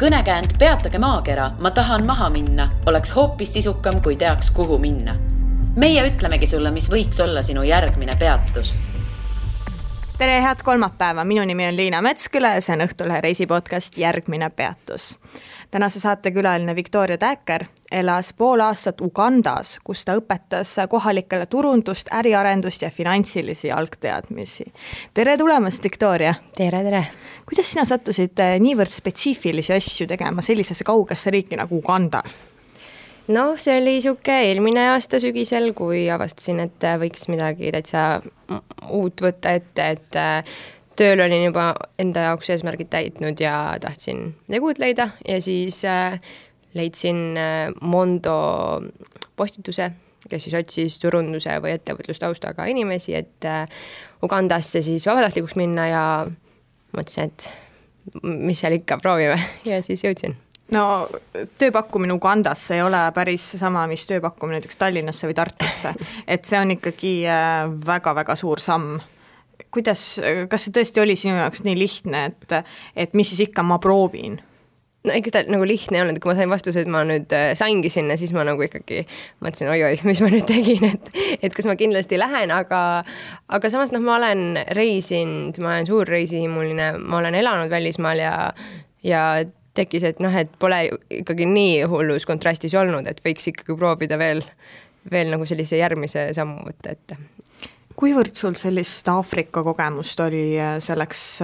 Kõnekäänd Peatage maakera, ma tahan maha minna, oleks hoopis sisukam, kui teaks, kuhu minna. Meie ütlemegi sulle, mis võiks olla sinu järgmine peatus. Tere, head kolmapäeva. Minu nimi on Liina Metsküla ja see on Õhtulehe reisipodcast Järgmine peatus. Tänase saate külaline Victoria Täker elas pool aastat Ugandas, kus ta õpetas kohalikele turundust, äriarendust ja finantsilisi algteadmisi. Tere tulemast, Victoria! Tere! Kuidas sina sattusid niivõrd spetsiifilisi asju tegema sellisesse kaugesse riiki nagu Uganda? No, see oli siuke eelmine aasta sügisel, kui avastasin, et võiks midagi täitsa uut võtta ette, et tööl olin juba enda jaoks eesmärgid täitnud ja tahtsin uut leida ja siis leidsin Mondo postituse, kes siis otsis turunduse või ettevõtlustaustaga inimesi, et Ugandasse siis vabatahtlikuks minna ja mõtlesin, et mis seal ikka proovime ja siis jõudsin. No, tööpakkumine Ugandasse ei ole päris sama, mis tööpakkumine näiteks Tallinnasse või Tartusse. Et see on ikkagi väga-väga suur samm. Kas see tõesti oli sinu jaoks nii lihtne, et mis siis ikka ma proovin? No ikka ta nagu lihtne ei olnud, kui ma sain vastuse, et ma nüüd saingi sinna, siis ma nagu ikkagi mõtlesin, oi, mis ma nüüd tegin, et kas ma kindlasti lähen, aga samas ma olen reisinud, ma olen suur reisihimuline, ma olen elanud välismaal ja tekkis, et et pole ikkagi nii hullus kontrastis olnud, et võiks ikkagi proovida veel nagu sellise järgmise sammu võtta ette. Kuivõrd sul sellist Aafrika kogemust oli selleks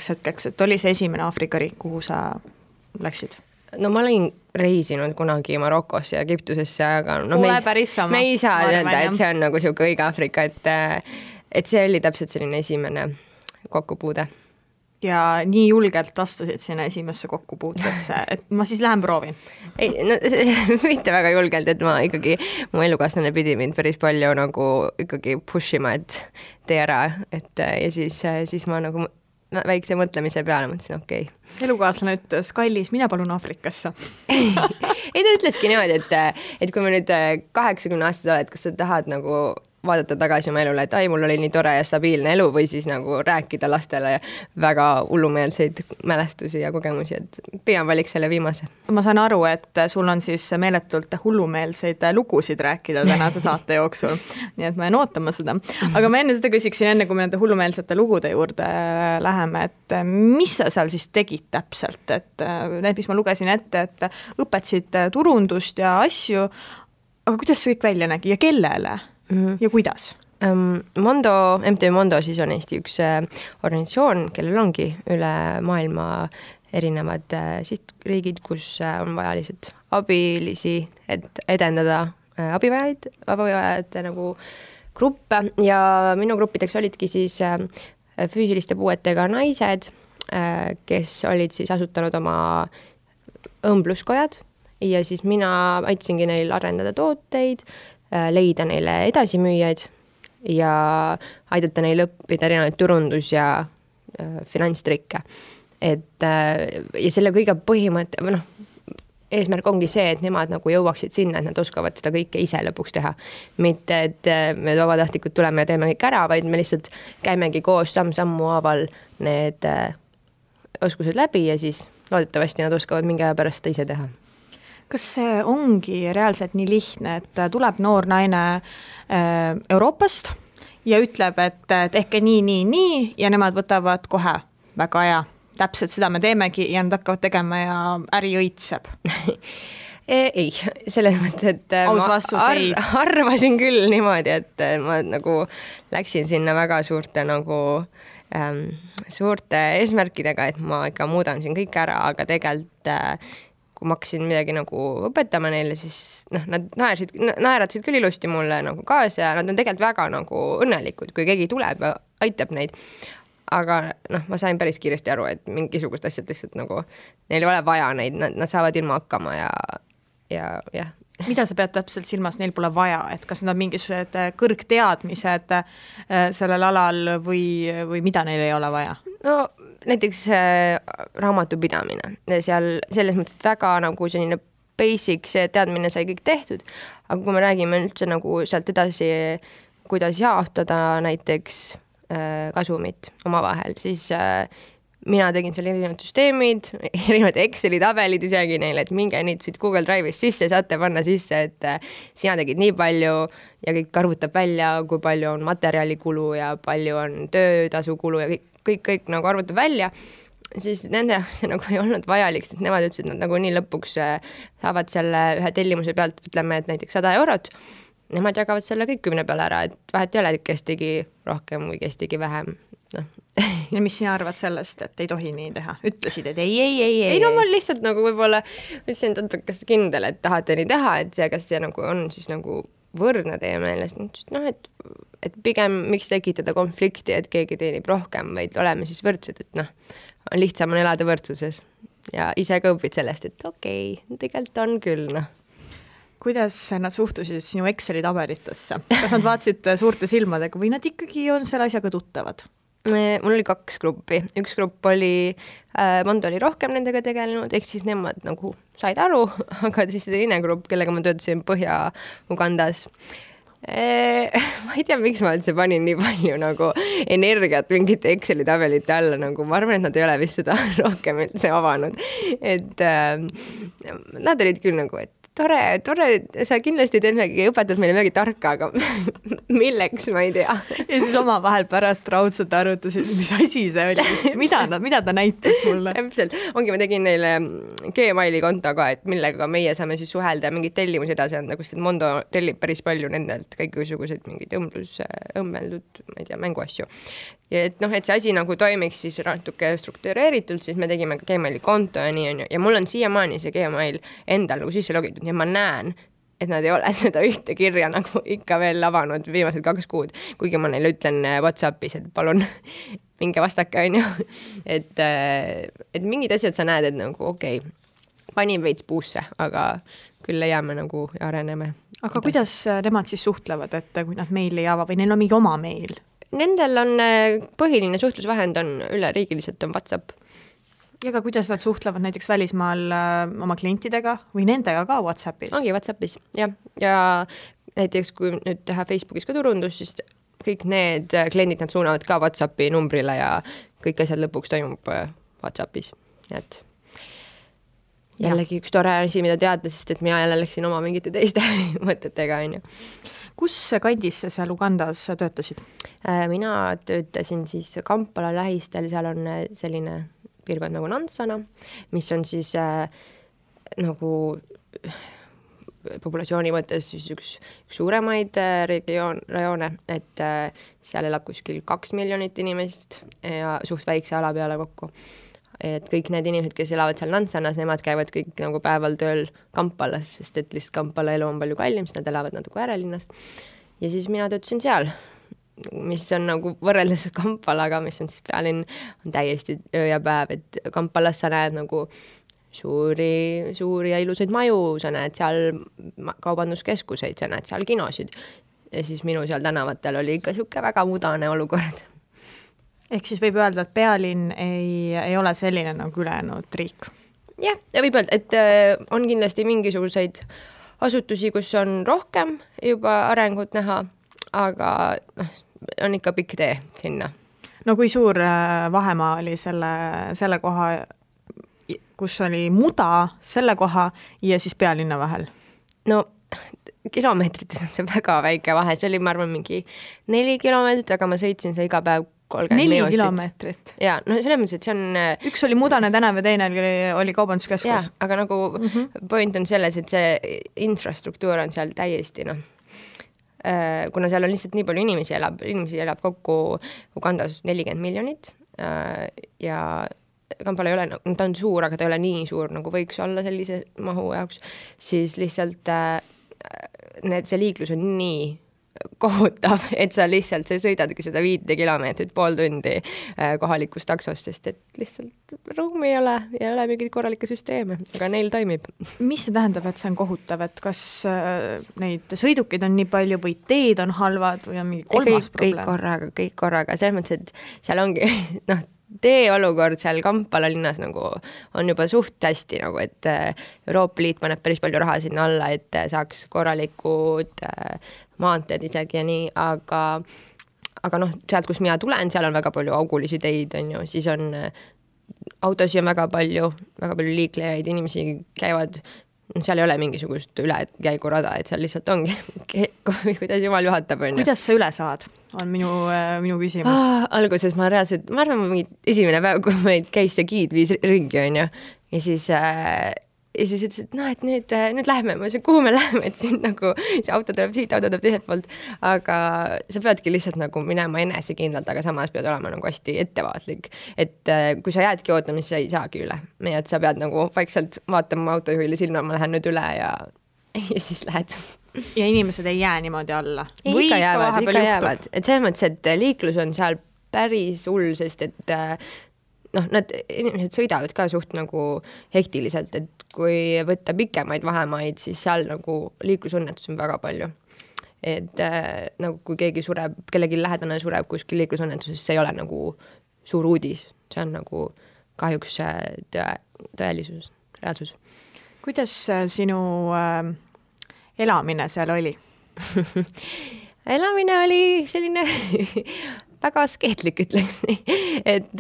hetkeks, et oli see esimene Aafrika riik, kuhu sa läksid? No ma olin reisinud kunagi Marokosse ja Egiptusesse, aga me ei saa öelda, et see on nagu siuke õige Aafrika, et see oli täpselt selline esimene kokkupuude. Ja nii julgelt astusid sinna esimesse kokkupuutesse, et ma siis lähen proovin. Ei, no mitte väga julgelt, et ma ikkagi, mu elukaaslane pidi mind päris palju nagu ikkagi pushima, et tee ära, ja siis ma nagu väikse mõtlemise peale mõtlesin, okei. Elukaaslane ütles, kallis, mina palun Aafrikasse. Ei, ta ütleski niimoodi, et kui me nüüd 80 aastat oled, kas sa tahad nagu vaadata tagasi oma elule, et mul oli nii tore ja stabiilne elu või siis nagu rääkida lastele väga hullumeelseid mälestusi ja kogemusi, et pigem valiks selle viimase. Ma saan aru, et sul on siis meeletult hullumeelseid lugusid rääkida tänase saate jooksul, nii et ma jään ootama seda. Aga ma enne seda küsiksin, kui me nende hullumeelsete lugude juurde läheme, et mis sa seal siis tegid täpselt, et need, mis ma lugesin ette, et õpetasid turundust ja asju, aga kuidas see kõik välja nägi ja kellele? Ja kuidas? MTÜ Mondo siis on Eesti üks organisatsioon, kellel ongi üle maailma erinevad sihtriigid, kus on vaja abilisi, et edendada abivajajate nagu gruppe ja minu gruppideks olidki siis füüsiliste puuetega naised, kes olid siis asutanud oma õmbluskojad ja siis mina aitasingi neil arendada tooteid, leida neile edasimüüjaid ja aidata neil õppida erinevaid turundus- ja finantstrikke. Ja selle kõige põhimõte, eesmärk ongi see, et nemad nagu jõuaksid sinna, et nad oskavad seda kõike ise lõpuks teha. Mitte, et me vabatahtlikud tuleme ja teeme kõik ära, vaid me lihtsalt käimegi koos samm-sammu haaval need oskused läbi ja siis loodetavasti nad oskavad mingi aja pärast ise teha. Kas see ongi reaalselt nii lihtne, et tuleb noor naine Euroopast ja ütleb, et tehke nii ja nemad võtavad kohe väga hea. Täpselt seda me teemegi ja nad hakkavad tegema ja äri õitseb? Ei, selles mõttes, et ma arvasin küll niimoodi, et ma nagu läksin sinna väga suurte eesmärkidega, et ma ikka muudan siin kõik ära, aga tegelikult kui ma hakkasin midagi nagu õpetama neile, siis nad naeratasid küll ilusti mulle nagu kaasa ja nad on tegelikult väga nagu õnnelikud, kui keegi tuleb ja aitab neid. Aga ma sain päris kiiresti aru, et mingisugust asjad lihtsalt nagu neil ei ole vaja neid, nad saavad ilma hakkama ja. Mida sa pead täpselt silmas, neil pole vaja, et kas nad on mingisugused kõrgteadmised sellel alal või mida neil ei ole vaja? No näiteks raamatupidamine. Seal selles mõttes väga nagu selline basic, see teadmine sai kõik tehtud, aga kui me räägime üldse nagu sealt edasi, kuidas jaotada näiteks kasumit omavahel, siis mina tegin seal erinevad süsteemid, erinevad Exceli tabelid isegi neile, et minge nüüd siit Google Drive'ist sisse, saate panna sisse, et sina tegid nii palju ja kõik arvutab välja, kui palju on materjalikulu ja palju on töötasukulu ja kõik nagu arvutab välja, siis nende jaoks see nagu ei olnud vajalik, sest nemad ütlesid, et nad nagu nii lõpuks saavad selle ühe tellimuse pealt, ütleme, et näiteks 100 eurot, nemad jagavad selle kõik 10 peale ära, et vahet ei ole, kes tegi rohkem või kes tegi vähem, noh. Ja mis sina arvad sellest, et ei tohi nii teha? Ütlesid, et ei. No ma lihtsalt nagu võib-olla ütlesin, et kas kindel, et tahate nii teha, et see, kas see nagu on siis nagu võrdne teie meelest, noh, et pigem miks tekitada konflikti, et keegi teenib rohkem, vaid oleme siis võrdsed, et noh, on lihtsam on elada võrdsuses ja ise ka õpid sellest, et okei, tegelikult on küll, noh. Kuidas nad suhtusid sinu Exceli tabelitesse? Kas nad vaatasid suurte silmadega või nad ikkagi on selle asjaga tuttavad? Mul oli 2 gruppi. Üks grupp oli, Mondo oli rohkem nendega tegelenud, ehk siis nemad nagu said aru, aga siis teine grupp, kellega ma töötasin Põhja-Ugandas. Ma ei tea, miks ma üldse panin nii palju nagu energiat mingite Exceli tabelite alla, nagu ma arvan, et nad ei ole vist seda rohkem üldse avanud. Et nad olid küll nagu, et tore, sa kindlasti teed midagi, õpetad meile midagi tarka, aga milleks, ma ei tea. Ja siis oma vahel pärast raudselt arvutasid, mis asi see oli, mida ta näitas mulle. Täpselt, ma tegin neile Gmaili konto ka, et millega meie saame siis suhelda ja mingid tellimusi edasi anda, kus Mondo tellib päris palju nendelt kõiksuguseid mingid õmmeldud, ma ei tea, mänguasju. Ja et noh, et see asi nagu toimiks siis natuke struktureeritult, siis me tegime ka Gmaili konto ja nii on ju. Ja mul on siiamaani see Gmail endal nagu sisse logitud, nii ma näen, et nad ei ole seda ühte kirja nagu ikka veel avanud viimased 2 kuud, kuigi ma neile ütlen WhatsAppis, et palun minge vastake, on ju. Et mingid asjad sa näed, et nagu okei, panin veits puusse, aga küll leiame nagu ja areneme. Aga kuidas nemad siis suhtlevad, et kui nad meili ei ava või neil on mingi oma meil? Nendel on põhiline suhtlusvahend on üleriigiliselt on WhatsApp. Ja ka kuidas nad suhtlevad näiteks välismaal oma klientidega või nendega ka WhatsAppis? Ongi WhatsAppis, jah. Ja näiteks kui nüüd teha Facebookis ka turundus, siis kõik need kliendid nad suunavad ka WhatsAppi numbrile ja kõik asjad lõpuks toimub WhatsAppis. Et jällegi üks tore asi, mida teada, sest et mina jälle läksin oma mingite teiste mõtetega, on ju. Kus kandis sa seal Ugandas töötasid? Mina töötasin siis Kampala lähistel, seal on selline piirkond nagu Nansana, mis on siis nagu populatsiooni mõttes siis üks suuremaid rajoone, et seal elab kuskil 2 miljonit inimest ja suht väikse ala peale kokku. Et kõik need inimesed, kes elavad seal Nansanas, nemad käivad kõik nagu päeval tööl Kampalas, sest et lihtsalt Kampala elu on palju kallim, sest nad elavad natuke äärelinnas. Ja siis mina töötasin seal, mis on nagu võrreldes Kampalaga, mis on siis pealinn, on täiesti öö ja päev, et Kampalas sa näed nagu suuri ja ilusaid maju, sa näed seal kaubanduskeskuseid, sa näed seal kinosid. Ja siis minu seal tänavatel oli ikka siuke väga mudane olukord. Ehk siis võib öelda, et pealinn ei ole selline nagu ülejäänud riik? Jah, ja võib öelda, et on kindlasti mingisuguseid asutusi, kus on rohkem juba arengut näha, aga on ikka pikk tee sinna. No kui suur vahemaa oli selle koha, kus oli muda, selle koha ja siis pealinna vahel? No kilomeetrites on see väga väike vahe, see oli, ma arvan, mingi 4 kilomeetrit, aga ma sõitsin see iga päev 30 4 minutit. Kilomeetrit? Jaa, no selles mõttes, et see on... Üks oli mudane tänav ja teine oli kaubanduskeskus. Jaa, aga nagu point on selles, et see infrastruktuur on seal täiesti, kuna seal on lihtsalt nii palju inimesi elab kokku Ugandas 40 miljonit ja Kampala ei ole, ta on suur, aga ta ei ole nii suur, nagu võiks olla sellise mahu jaoks, siis lihtsalt see liiklus on nii kohutav, et sa lihtsalt sõidadki seda 5 kilomeetrit, pool tundi kohalikust taksost, sest et lihtsalt ruumi ei ole mingit korralikke süsteeme, aga neil toimib. Mis see tähendab, et see on kohutav, et kas neid sõidukid on nii palju või teed on halvad või on mingi kolmas probleem? Kõik korraga, selles mõttes, et seal ongi, tee olukord seal Kampala linnas nagu on juba suht hästi, nagu, et Euroopa Liit paneb päris palju raha sinna alla, et saaks korralikud maanteed isegi ja nii, aga sealt, kus mina tulen, seal on väga palju augulisi teid, on ju, siis on autosid on väga palju liiklejaid, inimesi käivad, seal ei ole mingisugust ülekäigurada, et seal lihtsalt ongi, kuidas jumal juhatab. Kuidas sa üle saad, on minu küsimus. Alguses ma arvan, esimene päev, kui meid käis see giid viis ringi, on ju, ja siis ütles, et noh, et nüüd lähme, ma ütlesin, kuhu me lähme, et siin nagu see auto tuleb siit, auto tuleb teiselt poolt, aga sa peadki lihtsalt nagu minema enesekindlalt, aga samas pead olema nagu hästi ettevaatlik, et kui sa jäädki ootama, siis sa ei saagi üle, nii et sa pead nagu vaikselt vaatama autojuhile silma, ma lähen nüüd üle ja siis lähed. Ja inimesed ei jää niimoodi alla? Ikka jäävad, et selles mõttes, et liiklus on seal päris hull, sest et nad inimesed sõidavad ka suht nagu hektiliselt, et kui võtta pikemaid vahemaid, siis seal nagu liiklusõnnetus on väga palju. Et nagu kui keegi sureb, kellegi lähedane sureb kuskil liiklusõnnetuses, see ei ole nagu suur uudis. See on nagu kahjuks tõelisus, reaalsus. Kuidas sinu elamine seal oli? Elamine oli selline väga askeetlik, ütleks nii, et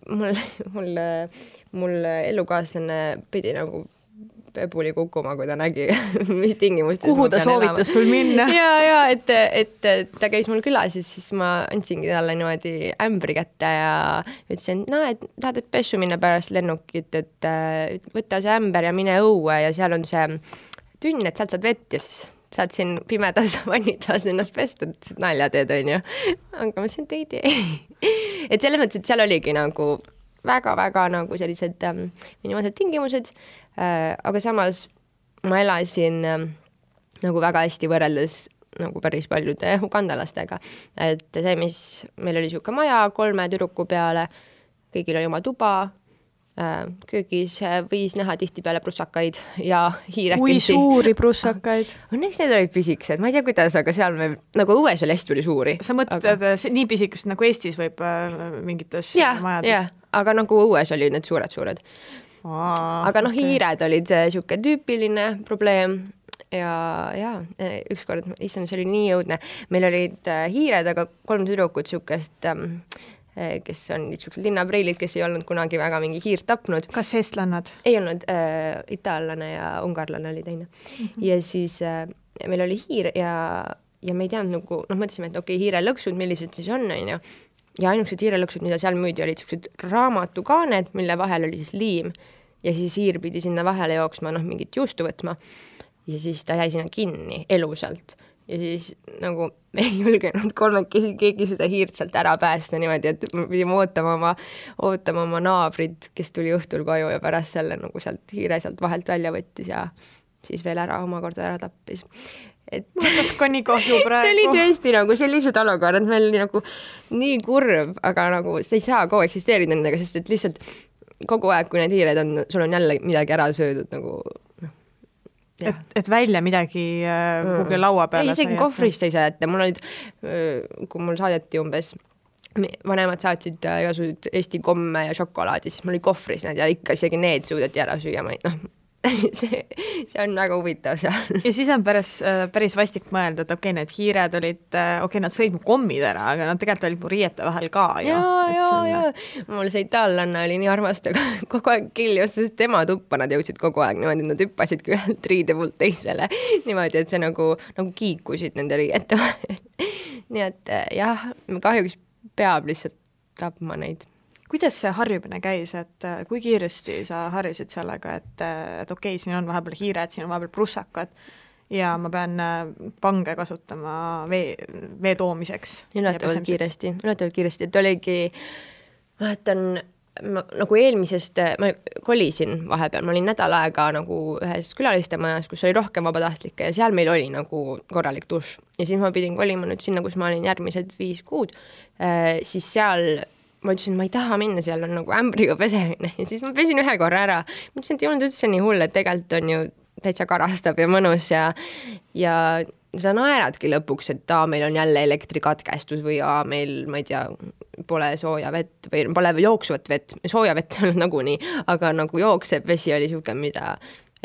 mul elukaaslane pidi nagu pebuli kukkuma, kui ta nägi, mis tingimustes. Kuhu ta soovitas sul minna? Ja, et ta käis mul külas, siis ma andsingi talle niimoodi ämbri kätte ja ütlesin, et tahad, et pessu minna pärast lennukit, et võtta see ämber ja mine õue ja seal on see tünn, et sealt saad vett ja siis saad siin pimedas vannitlas ennast pesta, et nalja teed, on ju. Aga ma ütlesin, et ei tee. Et selles mõttes, et seal oligi nagu väga-väga nagu sellised minimaalsed tingimused, aga samas ma elasin nagu väga hästi võrreldes nagu päris paljude ugandalastega. Et see, mis meil oli siuke maja 3 tüdruku peale, kõigil oli oma tuba, köögis võis näha tihtipeale prussakaid ja hiirekesi. Kui suuri prussakaid? Õnneks need olid pisikesed, ma ei tea kuidas, aga seal me nagu õues oli hästi suuri. Sa mõtled nii pisikest nagu Eestis võib mingites majades? Jah, aga nagu õues olid need suured. Aga hiired olid siuke tüüpiline probleem ja ükskord, issand, see oli nii jõudne. Meil olid hiired, aga 3 tüdrukut siukest kes on niisugused linnapreilid, kes ei olnud kunagi väga mingi hiirt tapnud. Kas eestlannad? Ei olnud, itaallane ja ungarlane oli teine. Ja siis meil oli hiir ja me ei teadnud nagu, mõtlesime, et okei, hiirelõksud, millised siis on, ja ainukesed hiirelõksud, mida seal müüdi, olid niisugused raamatukaaned, mille vahel oli siis liim ja siis hiir pidi sinna vahele jooksma, mingit juustu võtma ja siis ta jäi sinna kinni elusalt. Ja siis nagu me ei julgenud kolmekesi keegi seda hiirt sealt ära päästa niimoodi, et me pidime ootama oma naabrid, kes tuli õhtul koju ja pärast selle nagu sealt hiire sealt vahelt välja võttis ja siis veel omakorda ära tappis. Kas ka nii kahju praegu? See oli tõesti nagu sellised olukorrad, meil oli nagu nii kurb, aga nagu see ei saa kogu eksisteerida nendega, sest et lihtsalt kogu aeg, kui need hiired on, sul on jälle midagi ära söödud nagu Et välja midagi kuhugi laua peale. Ei, isegi kohvrist ei saa jätta. Mul olid, kui mul saadeti umbes, vanemad saatsid igasugused Eesti komme ja šokolaadi, siis mul oli kohvris need ja ikka isegi need suudeti ära süüa. See on väga huvitav seal. Ja siis on päris vastik mõelda, et okei, need hiired olid, nad sõid mu kommid ära, aga nad tegelikult olid mu riiete vahel ka. Ja. Mul see itaallanna oli nii armastaga kogu aeg kiljus, sest tema tuppa nad jõudsid kogu aeg niimoodi, nad hüppasidki ühelt riide poolt teisele niimoodi, et see nagu kiikusid nende riiete vahel. Nii et jah, kahjuks peab lihtsalt tapma neid. Kuidas see harjumine käis, et kui kiiresti sa harjusid sellega, et okei, siin on vahepeal hiired, siin on vahepeal prussakad ja ma pean pange kasutama vee toomiseks? Ületavalt kiiresti, et oligi, ma mäletan, nagu eelmisest, ma kolisin vahepeal, ma olin nädal aega nagu ühes külalistemajas, kus oli rohkem vabatahtlikke ja seal meil oli nagu korralik duš ja siis ma pidin kolima nüüd sinna, kus ma olin järgmised 5 kuud, siis seal ma ütlesin, ma ei taha minna, seal on nagu ämbriga pesemine ja siis ma pesin 1 korra ära. Ma ütlesin, et ei olnud üldse nii hull, et tegelikult on ju täitsa karastab ja mõnus ja sa naeradki lõpuks, et meil on jälle elektrikatkestus või meil, ma ei tea, pole sooja vett või pole jooksvat vett, sooja vett on nagunii, aga nagu jooksev vesi oli siuke, mida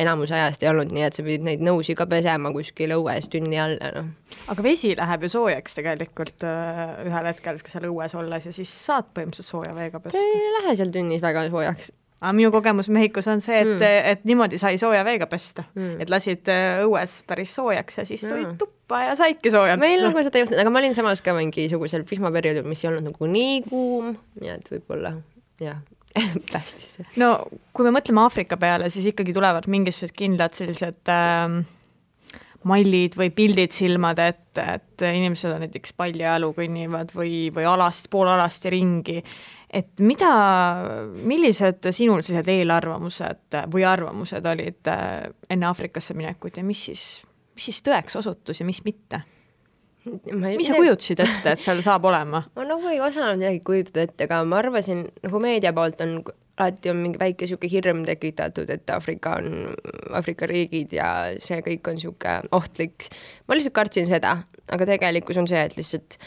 enamus ajast ei olnud, nii et sa pidid neid nõusi ka pesema kuskil õues tünni all, noh. Aga vesi läheb ju soojaks tegelikult ühel hetkel, kui seal õues olles ja siis saad põhimõtteliselt sooja veega pesta. Ei lähe seal tünnis väga soojaks. Aga minu kogemus Mehhikos on see, et niimoodi sai sooja veega pesta. Et lasid õues päris soojaks ja siis tulid tuppa ja saidki soojalt. Meil nagu seda juhtunud, aga ma olin samas ka mingisugusel vihmaperioodil, mis ei olnud nagu nii kuum, nii et võib-olla, jah, tähtis. No kui me mõtleme Aafrika peale, siis ikkagi tulevad mingisugused kindlad sellised mallid või pildid silmad, et inimesed on näiteks paljajalu kõnnivad või poolalasti ringi. Et millised sinul sellised eelarvamused või arvamused olid enne Aafrikasse minekut ja mis siis tõeks osutus ja mis mitte? Mis sa kujutasid ette, et seal saab olema? Ma nagu ei osanud midagi kujutada ette, aga ma arvasin, nagu meedia poolt alati on mingi väike siuke hirm tekitatud, et Aafrika riigid ja see kõik on siuke ohtlik. Ma lihtsalt kartsin seda, aga tegelikkus on see, et lihtsalt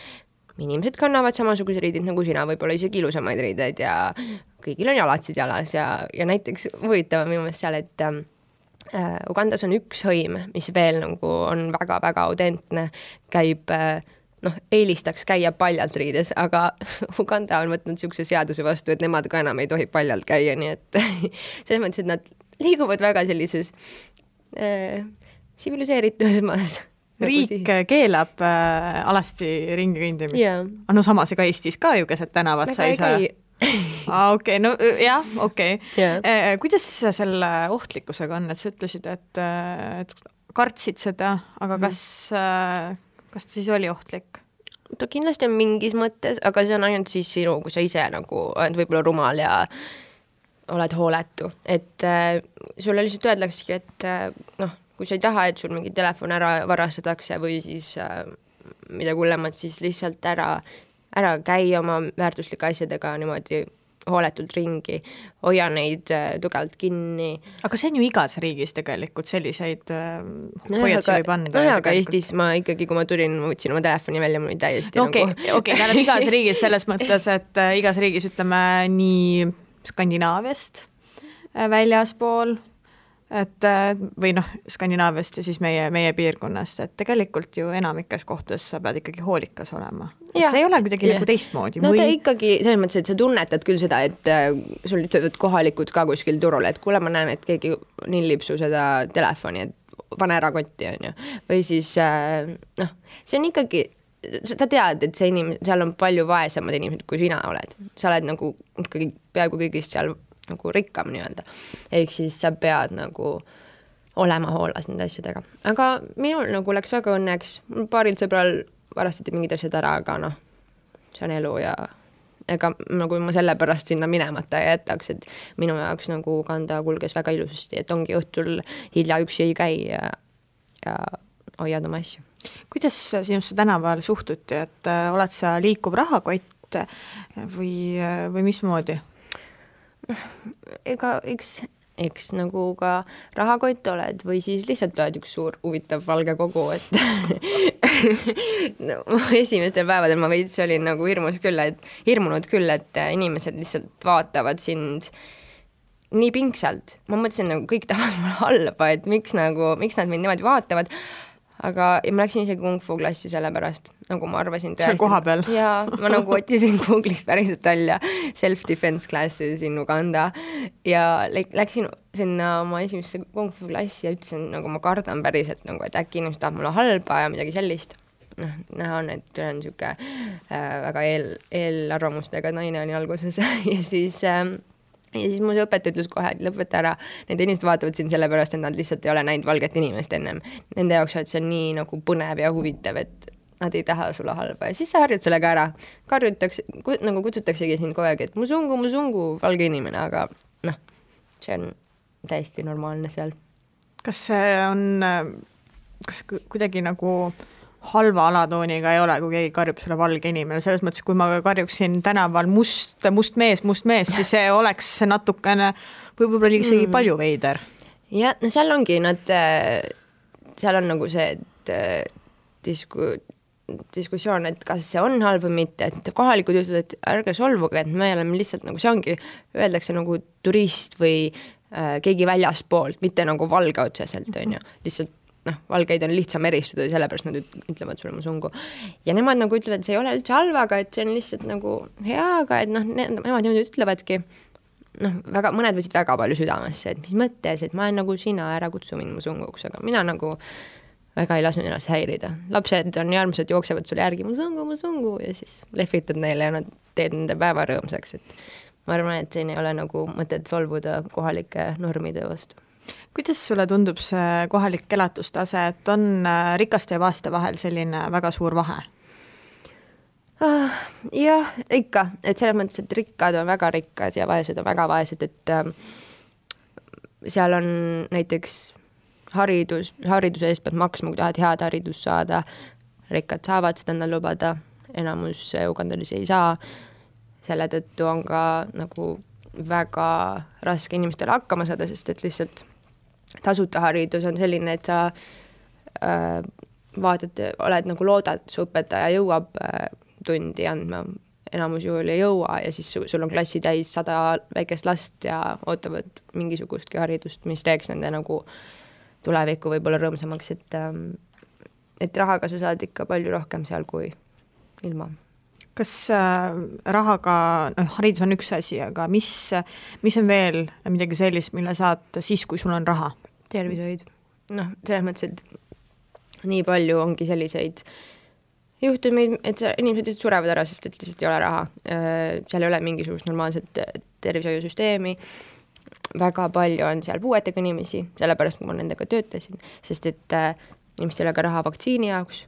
inimesed kannavad samasugused riidid nagu sina, võib-olla isegi ilusamaid riideid ja kõigil on jalatsid jalas ja näiteks huvitav minu meelest seal, et Ugandas on üks hõim, mis veel nagu on väga-väga autentne, käib, eelistaks käia paljalt riides, aga Uganda on võtnud niisuguse seaduse vastu, et nemad ka enam ei tohi paljalt käia, nii et selles mõttes, et nad liiguvad väga sellises tsiviliseeritumas. Riik keelab alasti ringi kõndimist. Yeah. No samas ega Eestis ka ju keset tänavat sa ei saa. Okei, no jah, okei. Yeah. Kuidas selle ohtlikkusega on, et sa ütlesid, et kartsid seda, aga kas ta siis oli ohtlik? Ta kindlasti on mingis mõttes, aga see on ainult siis sinu, kui sa ise nagu oled võib-olla rumal ja oled hooletu. Et sulle lihtsalt öeldaksegi, et kui sa ei taha, et sul mingi telefon ära varastatakse või siis mida kullemat, siis lihtsalt ära käi oma väärtuslike asjadega niimoodi hooletult ringi, hoia neid tugevalt kinni. Aga see on ju igas riigis tegelikult selliseid hoiatusi võib anda. Aga Eestis ma ikkagi, kui ma tulin, ma võtsin oma telefoni välja, mul oli täiesti tähendab igas riigis selles mõttes, et igas riigis ütleme nii Skandinaaviast väljaspool, et või Skandinaaviast ja siis meie piirkonnast, et tegelikult ju enamikes kohtades sa pead ikkagi hoolikas olema. Et see ei ole kuidagi nagu teistmoodi. No ta ikkagi, selles mõttes, et sa tunnetad küll seda, et sul ütlevad kohalikud ka kuskil turul, et kuule, ma näen, et keegi nillib su seda telefoni, et pane ära kotti, on ju. Või siis, see on ikkagi, sa tead, et see seal on palju vaesemad inimesed, kui sina oled. Sa oled nagu ikkagi peaaegu kõigist seal nagu rikkam nii-öelda. Ehk siis sa pead nagu olema hoolas nende asjadega. Aga minul nagu läks väga õnneks. Paaril sõbral varastati mingid asjad ära, aga see on elu ja ega nagu ma selle pärast sinna minemata ei jätaks, et minu jaoks nagu Uganda kulges väga ilusasti, et ongi õhtul hilja üksi ei käi ja hoiad oma asju. Kuidas sinusse tänaval suhtuti, et oled sa liikuv rahakott või mismoodi? Ega eks nagu ka rahakott oled või siis lihtsalt oled üks suur huvitav valge kogu, et esimestel päevadel ma veits olin nagu hirmunud küll, et inimesed lihtsalt vaatavad sind nii pingsalt. Ma mõtlesin, nagu kõik tahavad mulle halba, et miks nad mind niimoodi vaatavad. Aga ma läksin isegi kung fu klassi selle pärast, nagu ma arvasin. Seal koha peal? Ja ma nagu otsisin Google'ist päriselt välja self-defense classes in Uganda ja läksin sinna oma esimesse kung fu klassi ja ütlesin, nagu ma kardan päriselt, nagu, et äkki inimesed tahab mulle halba ja midagi sellist. Näha on, et olen niisugune väga eelarvamustega naine oli alguses ja siis mu õpetaja ütles kohe, et lõpeta ära. Need inimesed vaatavad siin selle pärast, et nad lihtsalt ei ole näinud valget inimest ennem. Nende jaoks on see nii nagu põnev ja huvitav, et nad ei taha sulle halba. Ja siis sa harjud sellega ära. Nagu kutsutaksegi siin kogu aeg, et musungu, valge inimene, aga see on täiesti normaalne seal. Kas kuidagi nagu halva alatooniga ei ole, kui keegi karjub sulle valge inimene. Selles mõttes, kui ma karjuksin tänaval must mees, siis see oleks natukene võib-olla isegi palju veider. Ja seal ongi seal on nagu see diskussioon, et kas see on halb või mitte, et kohalikud ütlevad, et ärge solvuge, et me oleme lihtsalt nagu see ongi, öeldakse nagu turist või keegi väljaspoolt, mitte nagu valge otseselt, on ju, lihtsalt valgeid on lihtsam eristada ja sellepärast nad ütlevad sulle musungu. Ja nemad nagu ütlevad, et see ei ole üldse halva, aga et see on lihtsalt nagu hea, aga et nemad niimoodi ütlevadki, väga, mõned võtsid väga palju südamesse, et mis mõttes, et ma olen nagu sina, ära kutsu mind musunguks, aga mina nagu väga ei lasknud ennast häirida. Lapsed on armsad, jooksevad sulle järgi musungu ja siis lehvitad neile ja nad teed nende päeva rõõmsaks, et ma arvan, et siin ei ole nagu mõtet solvuda kohalike normide vastu. Kuidas sulle tundub see kohalik elatustase, et on rikaste ja vaeste vahel selline väga suur vahe? Jah, ikka, et selles mõttes, et rikkad on väga rikkad ja vaesed on väga vaesed, et seal on näiteks hariduse eest pead maksma, kui tahad head haridust saada, rikkad saavad seda endale lubada, enamus ugandalisi ei saa, selle tõttu on ka nagu väga raske inimestele hakkama saada, sest et lihtsalt tasuta haridus on selline, et sa vaatad, oled nagu loodad, su õpetaja jõuab tundi andma, enamus juhul ei jõua ja siis sul on klassi täis 100 väikest last ja ootavad mingisugustki haridust, mis teeks nende nagu tulevikku võib-olla rõõmsamaks, et rahaga sa saad ikka palju rohkem seal kui ilma. Kas rahaga, haridus on üks asi, aga mis on veel midagi sellist, mille saad siis, kui sul on raha? Tervishoid. Selles mõttes, et nii palju ongi selliseid juhtumeid, et inimesed lihtsalt surevad ära, sest et lihtsalt ei ole raha. Seal ei ole mingisugust normaalset tervishoiusüsteemi. Väga palju on seal puuetega inimesi, sellepärast kui ma nendega töötasin, sest et inimestel ei ole ka raha vaktsiini jaoks,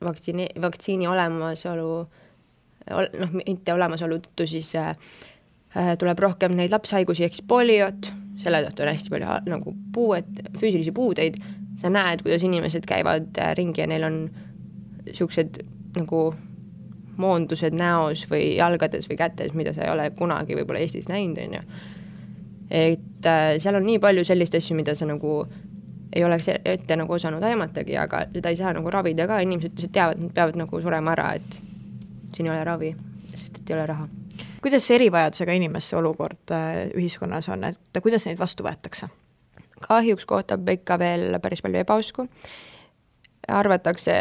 vaktsiini olemasolu, mitte olemasolu tõttu siis tuleb rohkem neid lapshaigusi ehk poliot, selle tõttu on hästi palju nagu füüsilisi puudeid, sa näed, kuidas inimesed käivad ringi ja neil on siuksed nagu moondused näos või jalgades või kätes, mida sa ei ole kunagi võib-olla Eestis näinud, on ju. Et seal on nii palju sellist asju, mida sa nagu ei oleks ette nagu osanud aimatagi, aga seda ei saa nagu ravida ka, inimesed teavad, nad peavad nagu surema ära, et siin ei ole ravi, sest et ei ole raha. Kuidas erivajadusega inimeste olukord ühiskonnas on, et kuidas neid vastu võetakse? Kahjuks kohtab ikka veel päris palju ebausku. Arvatakse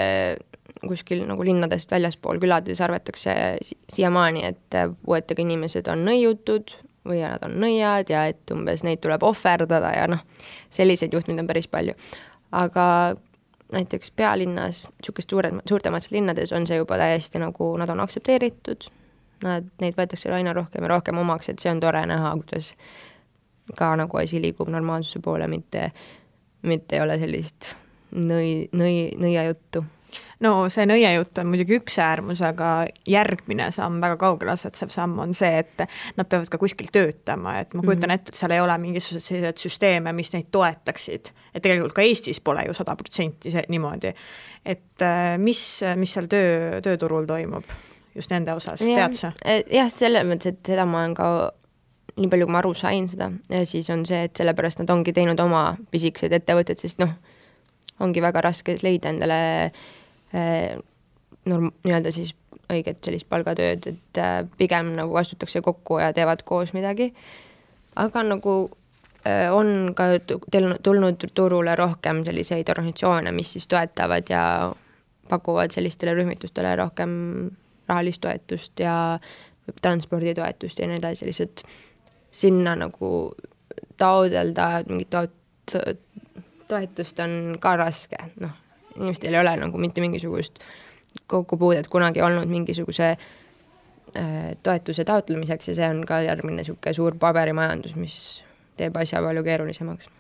kuskil nagu linnadest väljaspool külades arvatakse siiamaani, et puuetega inimesed on nõiutud või nad on nõiad ja et umbes neid tuleb ohverdada ja selliseid juhtumid on päris palju. Aga näiteks pealinnas, suurtemates linnades on see juba täiesti nagu nad on aktsepteeritud, neid võetakse aina rohkem ja rohkem omaks, et see on tore näha, kuidas ka nagu asi liigub normaalsuse poole, mitte ei ole sellist nõia juttu. No see nõia jutt on muidugi üks äärmus, aga järgmine samm, väga kaugel asetsev samm on see, et nad peavad ka kuskil töötama, et ma kujutan ette, et seal ei ole mingisugused sellised süsteeme, mis neid toetaksid, et tegelikult ka Eestis pole ju 100% niimoodi, et mis seal tööturul toimub just nende osas, tead sa? Jah, selle mõttes, et seda ma olen ka nii palju, kui ma aru sain seda, ja siis on see, et sellepärast nad ongi teinud oma pisikesed ettevõtted, sest ongi väga raske leida endale nii-öelda siis õiget sellist palgatööd, et pigem nagu vastutakse kokku ja teevad koos midagi. Aga nagu on ka tulnud turule rohkem selliseid organisatsioone, mis siis toetavad ja pakuvad sellistele rühmitustele rohkem rahalist toetust ja transporditoetust ja nii edasi, lihtsalt sinna nagu taodelda mingit toetust on ka raske, inimestel ei ole nagu mitte mingisugust kokkupuudet kunagi olnud mingisuguse toetuse taotlemiseks ja see on ka järgmine suur paberimajandus, mis teeb asja palju keerulisemaks.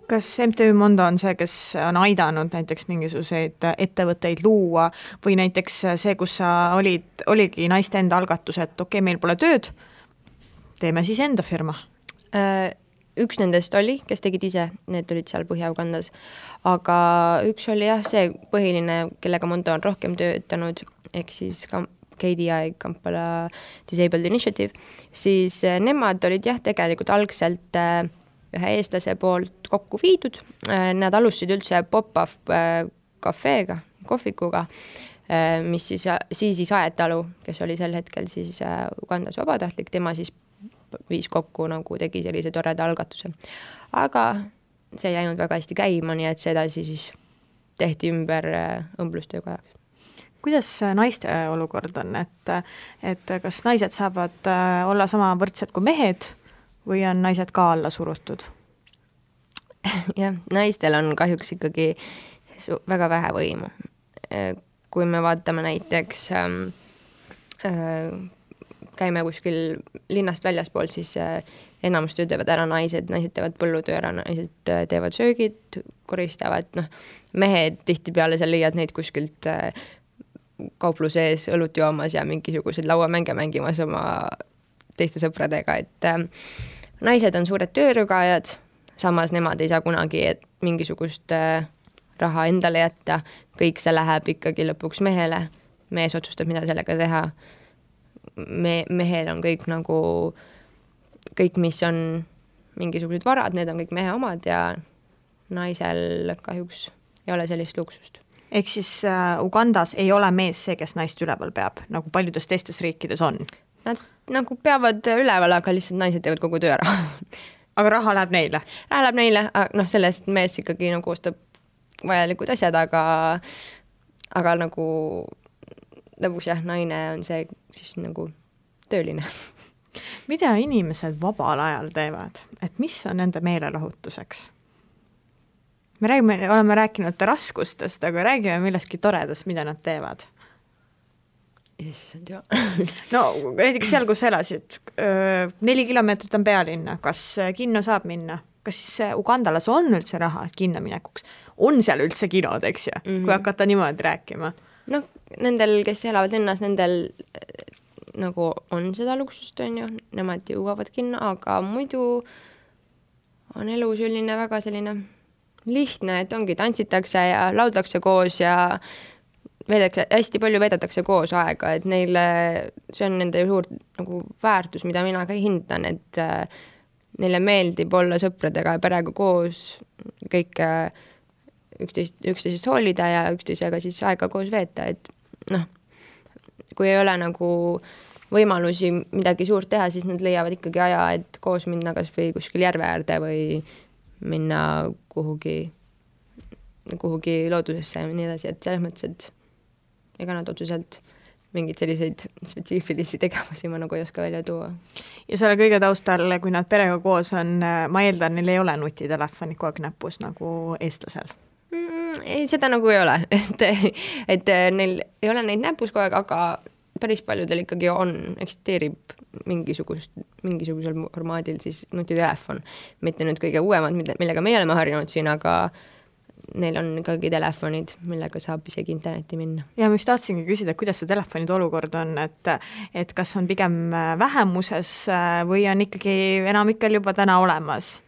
Kas MTÜ Mondo on see, kes on aidanud näiteks mingisuguseid ettevõtteid luua või näiteks see, kus sa oligi naiste enda algatus, et okei, meil pole tööd, teeme siis enda firma? Üks nendest oli, kes tegid ise, need olid seal Põhja-Ugandas, aga üks oli jah, see põhiline, kellega Mondo on rohkem töötanud, ehk siis KDI, Kampala Disabled Initiative, siis nemad olid jah, tegelikult algselt ühe eestlase poolt kokku viidud, nad alustasid üldse pop-up kafeega, kohvikuga, mis siis Aetalu, kes oli sel hetkel siis Ugandas vabatahtlik, tema siis viis kokku nagu tegi sellise toreda algatuse. Aga see ei läinud väga hästi käima, nii et see edasi siis tehti ümber õmblustöökojaks. Kuidas naiste olukord on, et kas naised saavad olla sama võrdsed kui mehed või on naised ka alla surutud? Jah, naistel on kahjuks ikkagi väga vähe võimu. Kui me vaatame näiteks, käime kuskil linnast väljaspool, siis enamus töö teevad ära naised teevad põllutöö ära, naised teevad söögid, koristavad, mehed tihtipeale sa leiad neid kuskilt kaupluse ees õlut joomas ja mingisugused lauamänge mängimas oma teiste sõpradega, et naised on suured töörügajad, samas nemad ei saa kunagi mingisugust raha endale jätta, kõik see läheb ikkagi lõpuks mehele, mees otsustab, mida sellega teha. Mehel on kõik nagu, kõik, mis on mingisugused varad, need on kõik mehe omad ja naisel kahjuks ei ole sellist luksust. Ehk siis Ugandas ei ole mees see, kes naist üleval peab, nagu paljudes teistes riikides on? Nad nagu peavad üleval, aga lihtsalt naised teevad kogu töö ära. Aga raha läheb neile? Raha läheb neile, sellest mees ikkagi nagu ostab vajalikud asjad, aga nagu lõpuks jah, naine on see siis nagu tööline. Mida inimesed vabal ajal teevad? Et mis on nende meelelahutuseks? Me oleme rääkinud raskustest, aga räägime millestki toredast, mida nad teevad. No näiteks seal, kus elasid, 4 kilomeetrit on pealinna, kas kinno saab minna? Kas siis Ugandalas on üldse raha kinno minekuks? On seal üldse kinod, eks ju, kui hakata niimoodi rääkima? No nendel, kes elavad linnas, nendel nagu on seda luksust, on ju, nemad jõuavad kinno, aga muidu on elu selline väga selline lihtne, et ongi, tantsitakse ja lauldakse koos ja hästi palju veedetakse koos aega, et neile, see on nende suur nagu väärtus, mida mina ka hindan, et neile meeldib olla sõpradega ja perega koos, kõik üksteisest hoolida ja üksteisega siis aega koos veeta, et kui ei ole nagu võimalusi midagi suurt teha, siis nad leiavad ikkagi aja, et koos minna kas või kuskil järve äärde või minna kuhugi loodusesse ja nii edasi, et selles mõttes, et ega nad otseselt mingid selliseid spetsiifilisi tegevusi ma nagu ei oska välja tuua. Ja selle kõige taustal, kui nad perega koos on, ma eeldan, neil ei ole nutitelefoni kogu aeg näpus nagu eestlasel? Ei, seda nagu ei ole, et neil ei ole neid näpus kogu aeg, aga päris paljudel ikkagi eksisteerib mingisugusel formaadil siis nutitelefon. Mitte nüüd kõige uuemad, millega me oleme harjunud siin, aga neil on ikkagi telefonid, millega saab isegi internetti minna. Ja ma just tahtsingi küsida, kuidas see telefonide olukord on, et kas on pigem vähemuses või on ikkagi enamikel juba täna olemas?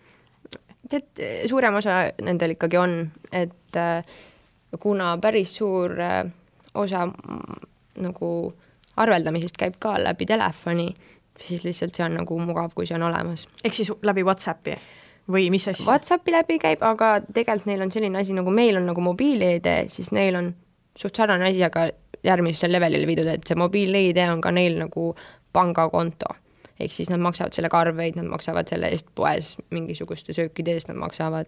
Suurem osa nendel ikkagi on, et kuna päris suur osa nagu arveldamisest käib ka läbi telefoni, siis lihtsalt see on nagu mugav, kui see on olemas. Ehk siis läbi WhatsAppi? Või mis asja? WhatsAppi läbi käib, aga tegelikult neil on selline asi, nagu meil on nagu mobiil-ID, siis neil on suht sarnane asi, aga järgmisel levelile viidud, et see mobiil-ID on ka neil nagu pangakonto. Ehk siis nad maksavad selle arveid, nad maksavad selle eest poes mingisuguste söökide eest, nad maksavad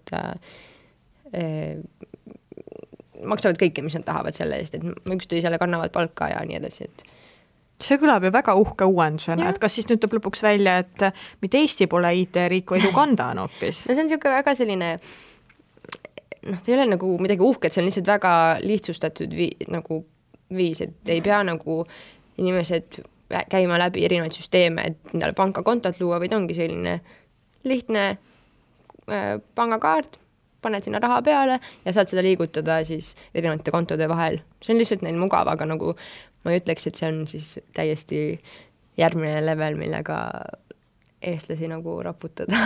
kõike, mis nad tahavad selle eest, et üksteisele kannavad palka ja nii edasi, et see kõlab ju väga uhke uuendusena, et kas siis nüüd tuleb lõpuks välja, et mitte Eesti pole IT-riik, vaid Uganda on hoopis? No see on niisugune väga selline, see ei ole nagu midagi uhket, see on lihtsalt väga lihtsustatud viis, et ei pea nagu inimesed käima läbi erinevaid süsteeme, et endale pangakontot luua, vaid ongi selline lihtne pangakaart, paned sinna raha peale ja saad seda liigutada siis erinevate kontode vahel. See on lihtsalt neil mugav, aga nagu ma ei ütleks, et see on siis täiesti järgmine level, millega eestlasi nagu raputada.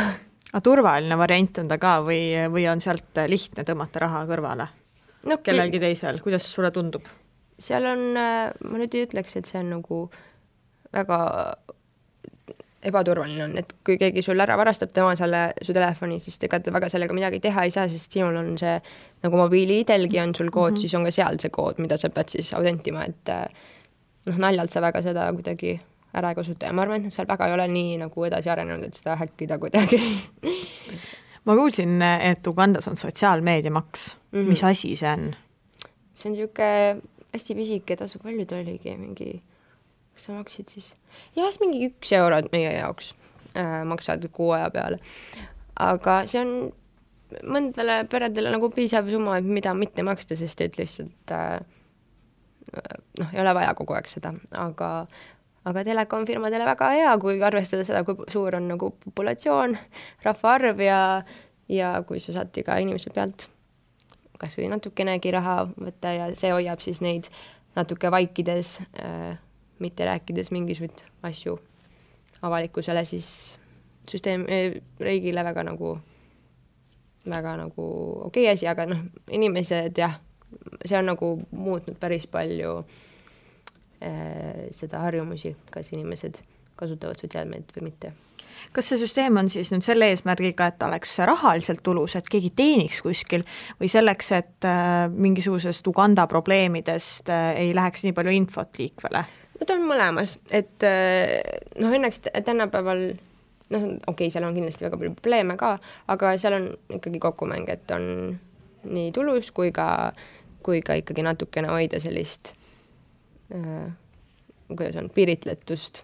Aga turvaline variant on ta ka või on sealt lihtne tõmmata raha kõrvale? No, kellelgi teisel, kuidas sulle tundub? Seal on, ma nüüd ei ütleks, et see on nagu väga ebaturvaline on, et kui keegi sul ära varastab tema su telefoni, siis ega väga sellega midagi teha ei saa, sest sinul on see, nagu mobiili-idelgi on sul kood, siis on ka seal see kood, mida sa pead siis autentima, et naljalt sa väga seda kuidagi ära ei kasuta ja ma arvan, et nad seal väga ei ole nii nagu edasi arenenud, et seda häkkida kuidagi. Ma kuulsin, et Ugandas on sotsiaalmeediamaks. Mis asi see on? See on niisugune hästi pisike tasu, palju ta oligi, mingi, kas sa maksid siis? Jah, mingi 1 euro meie jaoks maksad kuu aja peale. Aga see on mõndale peredele nagu piisav summa, mida mitte maksta, sest et lihtsalt ei ole vaja kogu aeg seda, aga telekomfirmadele väga hea, kui arvestada seda, kui suur on nagu populatsioon, rahvaarv ja kui sa saad iga inimese pealt kas või natukenegi raha võtta ja see hoiab siis neid natuke vaikides, mitte rääkides mingisugust asju avalikkusele, siis riigile väga nagu okei asi, aga inimesed jah, see on nagu muutnud päris palju seda harjumusi, kas inimesed kasutavad sotsiaalmeediat või mitte. Kas see süsteem on siis nüüd selle eesmärgiga, et oleks rahaliselt tulus, et keegi teeniks kuskil või selleks, et mingisugusest Uganda probleemidest ei läheks nii palju infot liikvele? Ta on mõlemas, et õnneks tänapäeval okei, seal on kindlasti väga palju probleeme ka, aga seal on ikkagi kokkumäng, et on nii tulus kui ka ikkagi natukene hoida sellist kuidas on, piiritletust,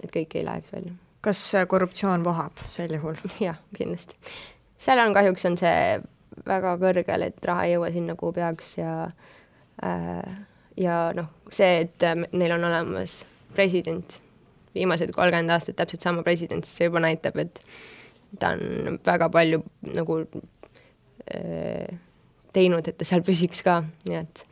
et kõik ei läheks välja. Kas korruptsioon vohab sel juhul? Jah, kindlasti. Seal on kahjuks on see väga kõrgel, et raha ei jõua sinna, kuhu peaks ja see, et neil on olemas president, viimased 30 aastat täpselt sama president, siis see juba näitab, et ta on väga palju nagu teinud, et ta seal püsiks ka, nii et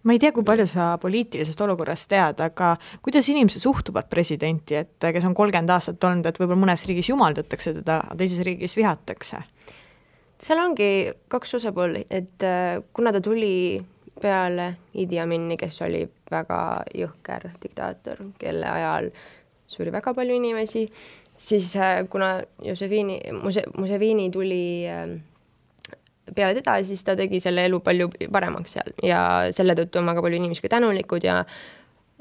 ma ei tea, kui palju sa poliitilisest olukorrast tead, aga kuidas inimesed suhtuvad presidenti, et kes on 30 aastat olnud, et võib-olla mõnes riigis jumaldatakse teda, teises riigis vihatakse? Seal ongi 2 osapooli, et kuna ta tuli peale Idi Amini, kes oli väga jõhker diktaator, kelle ajal suri väga palju inimesi, siis kuna Museveni tuli peale teda, siis ta tegi selle elu palju paremaks seal ja selle tõttu on väga palju inimesi ka tänulikud ja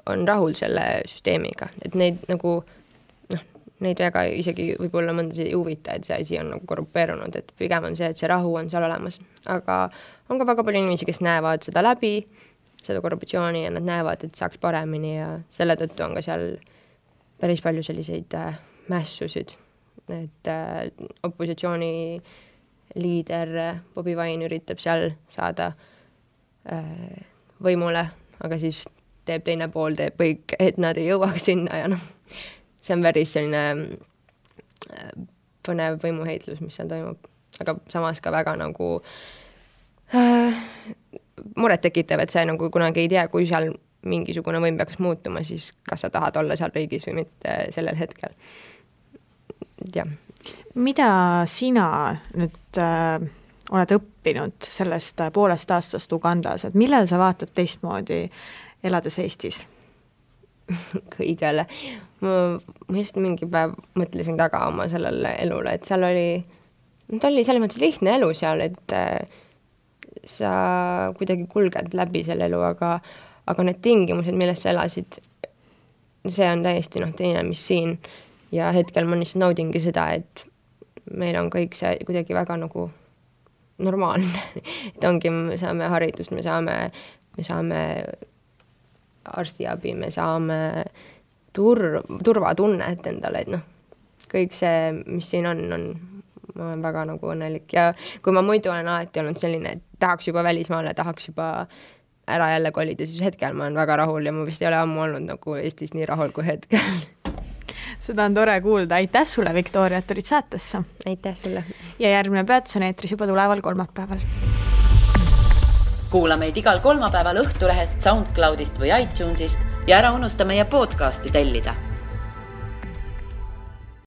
on rahul selle süsteemiga, et neid nagu neid väga isegi võib-olla mõnda ei huvita, et see asi on nagu korrupeerunud, et pigem on see, et see rahu on seal olemas, aga on ka väga palju inimesi, kes näevad seda läbi, seda korruptsiooni ja nad näevad, et saaks paremini ja selle tõttu on ka seal päris palju selliseid mässusid, et opositsiooni liider Bobi Wine üritab seal saada võimule, aga siis teeb teine pool, teeb kõik, et nad ei jõuaks sinna ja see on päris selline põnev võimuheitlus, mis seal toimub, aga samas ka väga nagu muret tekitav, et see nagu kunagi ei tea, kui seal mingisugune võim peaks muutuma, siis kas sa tahad olla seal riigis või mitte sellel hetkel. Jah. Mida sina nüüd oled õppinud sellest 1,5 aastast Ugandas, et millal sa vaatad teistmoodi elades Eestis? Kõigele. Ma just mingi päev mõtlesin taga oma sellele elule, et seal oli selles mõttes lihtne elu seal, et sa kuidagi kulged läbi selle elu, aga need tingimused, milles sa elasid, see on täiesti teine, mis siin. Ja hetkel ma lihtsalt naudingi seda, et meil on kõik see kuidagi väga nagu normaalne. Et ongi, me saame haridust, me saame arstiabi, me saame turvatunnet endale, et kõik see, mis siin on, ma olen väga nagu õnnelik. Ja kui ma muidu olen alati olnud selline, et tahaks juba välismaale, tahaks juba ära jälle kolida, siis hetkel ma olen väga rahul ja ma vist ei ole ammu olnud nagu Eestis nii rahul kui hetkel. Seda on tore kuulda. Aitäh sulle, Viktoria, et tulid saatesse. Aitäh sulle. Ja järgmine peatus on eetris juba tuleval kolmapäeval. Kuula meid igal kolmapäeval Õhtulehest, SoundCloudist või iTunesist ja ära unusta meie podcasti tellida.